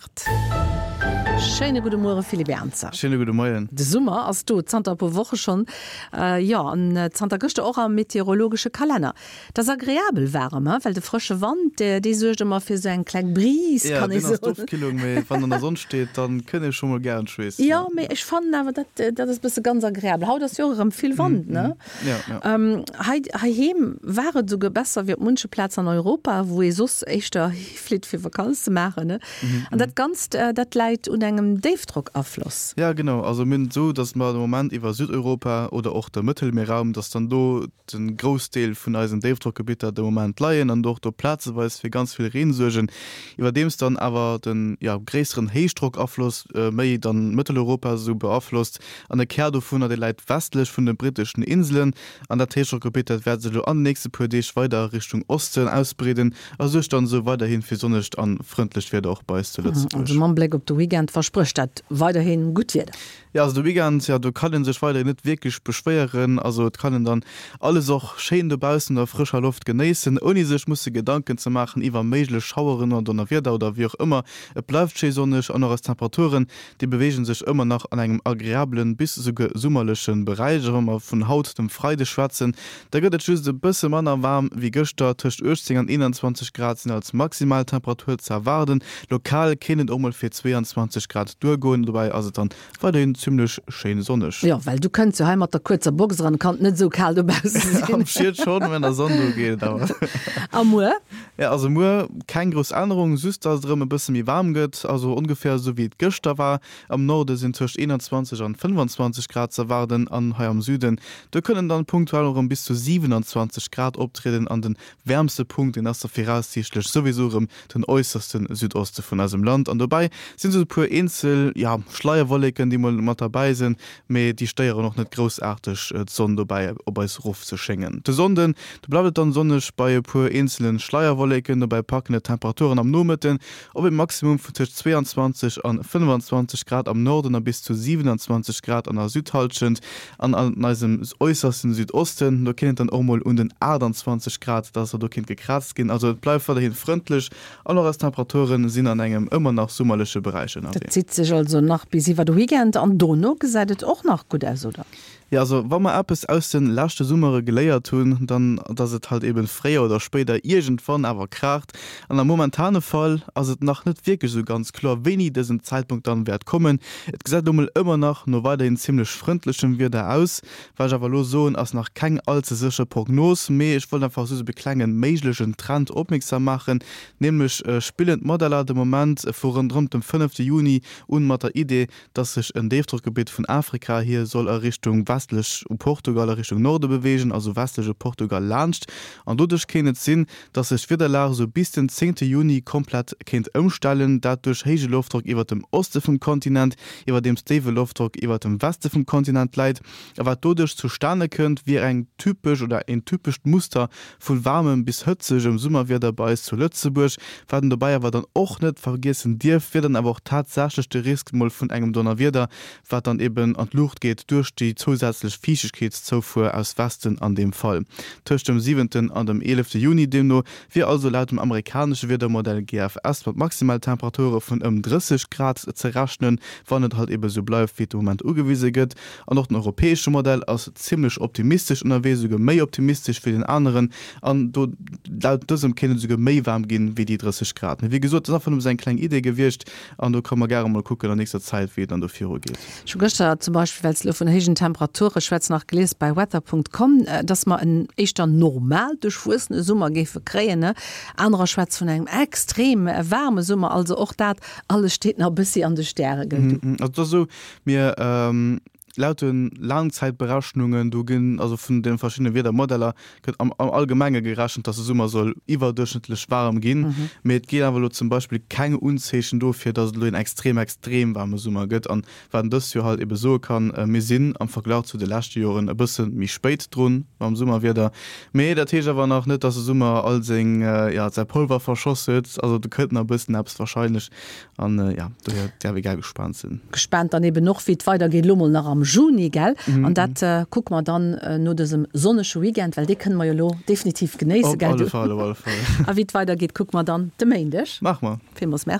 8. Schéine gudde Muere Philippe Ernzer. Schéine gudde Moien. De Summer ass do, zanter e puer Woche schonn, jo, an zanter gëschter och am meteorologesche Kalenner. Et ass agreabel waarem, he, well de frësche Wand, dee suergt ëmmer fir esou eng kleng Brise, kann ee soen. Jo, deen ass d'Ofkillung, mee wann an der Sonn steet, dann kënnt ee scho mol gären schweessen. Jo, mee ech fannen awer, dat, dat ass e bësse ganz agreabel. Haut ass jo och erëm vill Wand, ne? Jo, jo. Hei, heiheem war et esouguer besser wéi op munche Plazen an Europa, wou ee soss éischter hiflitt fir Vakanz ze maachen, ne? An dat Ganzt, dat läit un engem Déifdrockafloss. Jo, genau. Also mir hunn et esou, datt mer de Moment iwwer Südeuropa oder och de Mëttelmierraum, datt dann do de Groussdeel vun eisen Déifdrockgebitter de Moment leien an och do plazeweis fir ganz vill Reen suergen, iwwerdeems dann awer de jo gréisseren Héichdrockafloss méi dann Mëtteleuropa esou beaflosst an e Kär dovunner dee läit westlech vun de britteschen Inselen an dat Héichdrockgebitt dat wäert sech elo an de nächste puer Deeg weider a Richtung Osten ausbreeden a suergt dann esou weiderhi fir sonnegt an frëndlecht Wieder och bei eis zu Lëtzebuerg. Also mam Bléck op de Weekend versprécht dat weiderhi gutt Wieder. Jo, also de Weekend, jo, do kann een sech weiderhin net wierklech beschwéieren. Also et kann een dann alles och schéin dobaussen an der frëscher Loft genéissen, ouni sech musse Gedanken ze maachen iwwer méiglech Schaueren oder Donnerwieder oder wéi och ëmmer. Et bleift schéi sonneg an och eis Temperaturen, déi beweege sech ëmmer nach an engem agreabelen bis esouguer summerleche Beräich. A wa mer vun haut, dem Freideg, schwätzen, da gëtt et just e bësse manner waarm wéi gëschter, tëscht 18 an 21 Grad sinn als Maximaltemperatur ze erwaarden. Lokal kéint et och mol fir 22 Grad duergoen, dobäi ass et dann weiderhin zimmlech schéin sonneg. Jo, well du kënns jo hei mat der kuerzer Box eran, kann et net esou kal dobausse sinn. Am Schied schonn, mä an der Sonn do geet et awer. A muer? Jo, also muer keng grouss Ännerung, just dass et erëm e bësse méi waarm gëtt, also ongeféier esou wéi et gëschter war. Am Norde sinn tëscht 21 an 25 Grad ze erwaarden an hei am Süden, do kënnen dann punktuell och erëm bis zu 27 Grad optrieden an den wäermste Punkt, deen ass da viraussiichtlech souwisou erëm den äusserste Südoste vun eisem Land. An dobäi sinn sou e puer eenzel, ja, Schleierwolleken, déi mol mat derbäi sinn, mee déi stéieren och net groussaarteg d'Sonn dobäi op eis rof ze schéngen. De Sonnden, do bleift et dann sonneg bei e puer eenzele Schleierwolleken, dobäi packen et d'Temperaturen am Nomëtten op e Maximum vun tëscht 22 an 25 Grad am Norden a bis zu 27 Grad an der Südhallschent. An an eisem äussersten Südosten, do kéint et dann och mol un den 28 Grad, dass der do kéint gekraazt ginn. Also et bleift weiderhi frëndlech an och eis Temperature sinn an engem ëmmer nach summerleche Beräich ënnerwee. Dat zitt sech also nach bis iwwer de Weekend an dono gesäit et och nach gutt aus, oder? Jo, also wa mer eppes aus de leschte Summere geléiert hunn, dann dass et halt eben fréier oder spéider iergendwann awer kraacht. An am momentane Fall ass et nach net wierklech esou ganz kloer, wéini dësen Zäitpunkt dann wäert kommen. Et gesäit elo mol ëmmer nach no weiderhin zimmlech frëndlechem Wieder aus. Wat ech awer elo soen, ass nach keng all ze sécher Prognos, mee ech wollt einfach just op e klenge méiglechen Trend opmierksam maachen, Nämlech spillen d'Modeller de Moment vu ronderëm dem fënnefte Juni un mat der Idee, dass sech en Déifdrockgebitt vun Afrika hier soll a Richtung westlech u Portugal a Richtung Norde beweegen, also westlech u Portugal laanscht. An doduerch kéint et sinn, dass sech d'Wiederlag esou bis den zéngte Juni komplett kéint ëmstellen, dat duerch héije Loftdrock iwwert dem Oste vum Kontinent, iwwerdeems déiwe Loftdrock iwwert dem Weste vum Kontinent läit. A wat doduerch zustane kënnt, wier eng typesch oder een typescht Muster vu waarmem bis hëtzegem Summerwieder bei eis zu Lëtzebuerg. Wat een dobäi awer dann och net vergiessen dierf, wier dann awer och tatsächlech de Risk mol vun engem Donnerwieder, wat dann eben an d'Luucht geet duerch déi zousätzlech Fiichtegkeetszoufuer aus Westen an deem Fall. Tëscht dem siwenten an dem eelefte Juni deemno wier also laut dem amerikanesche Wiedermodell GFS mat Maximaltemperature vun ëm 30 Grad ze rechnen, wann et halt ebe sou bleift wéi et de Moment ugewise gëtt. An och den europäesche Modell ass zimmlech optimistesch ënnerwee, esouguer méi optimistesch wéi den aneren. An do laut dësem kéint et esouguer méi waarm ginn wéi déi 30 Grad. Mee wéi gesot, dat ass einfach nëmme sou eng kleng Idee gewiescht. An do ka mer gäre mol kucken an nächster Zäit, wéi et dann do viru geet. Ech hu gëschter zum Beispill, well s de elo vun héijen Temperature schwätz, nach gelies bei weather.com, dass mer en éischter normal duerchwuessene Summer géife kréien. Anerer schwätze vun engem extrem waarme Summer. Also och dat alles steet nach e bëssi an de Stäre, gell du? Also et ass esou, mir laut de Laangzäitberechnungen, do ginn, also vun de verschiddene Wiedermodeller, gëtt am Allgemenge gerechent, dass de Summer soll iwwerduerchschnëttlech waarem ginn. Mee et ginn awer elo zum Beispill keng Unzeechen dofir, dass et elo een extrem, extrem waarme Summer gëtt. An wat een dëst Joer halt ebe soe kann, Mir sinn am Verglach zu de leschte Joren e bësse méi spéit drun mam Summerwieder. Mee dat heescht awer nach net, dass de Summer all seng, jo, säi Polver verschoss huet. Also do kënnt nach e bëssen eppes warscheinlech. An jo, dohier däerf ee gär gespaant sinn. Gespaant dann eben och, wéi et weidergeet, elo mol nach am Juni, gell? An dat kucke mer dann no dësem sonnege Weekend, well dee kënne mer jo elo definitiv genéissen, gell? Op alle Fall, op alle Fall. A wéi et weidergeet, kucke mer dann de Méindeg. Maache mer. Villmools Merci.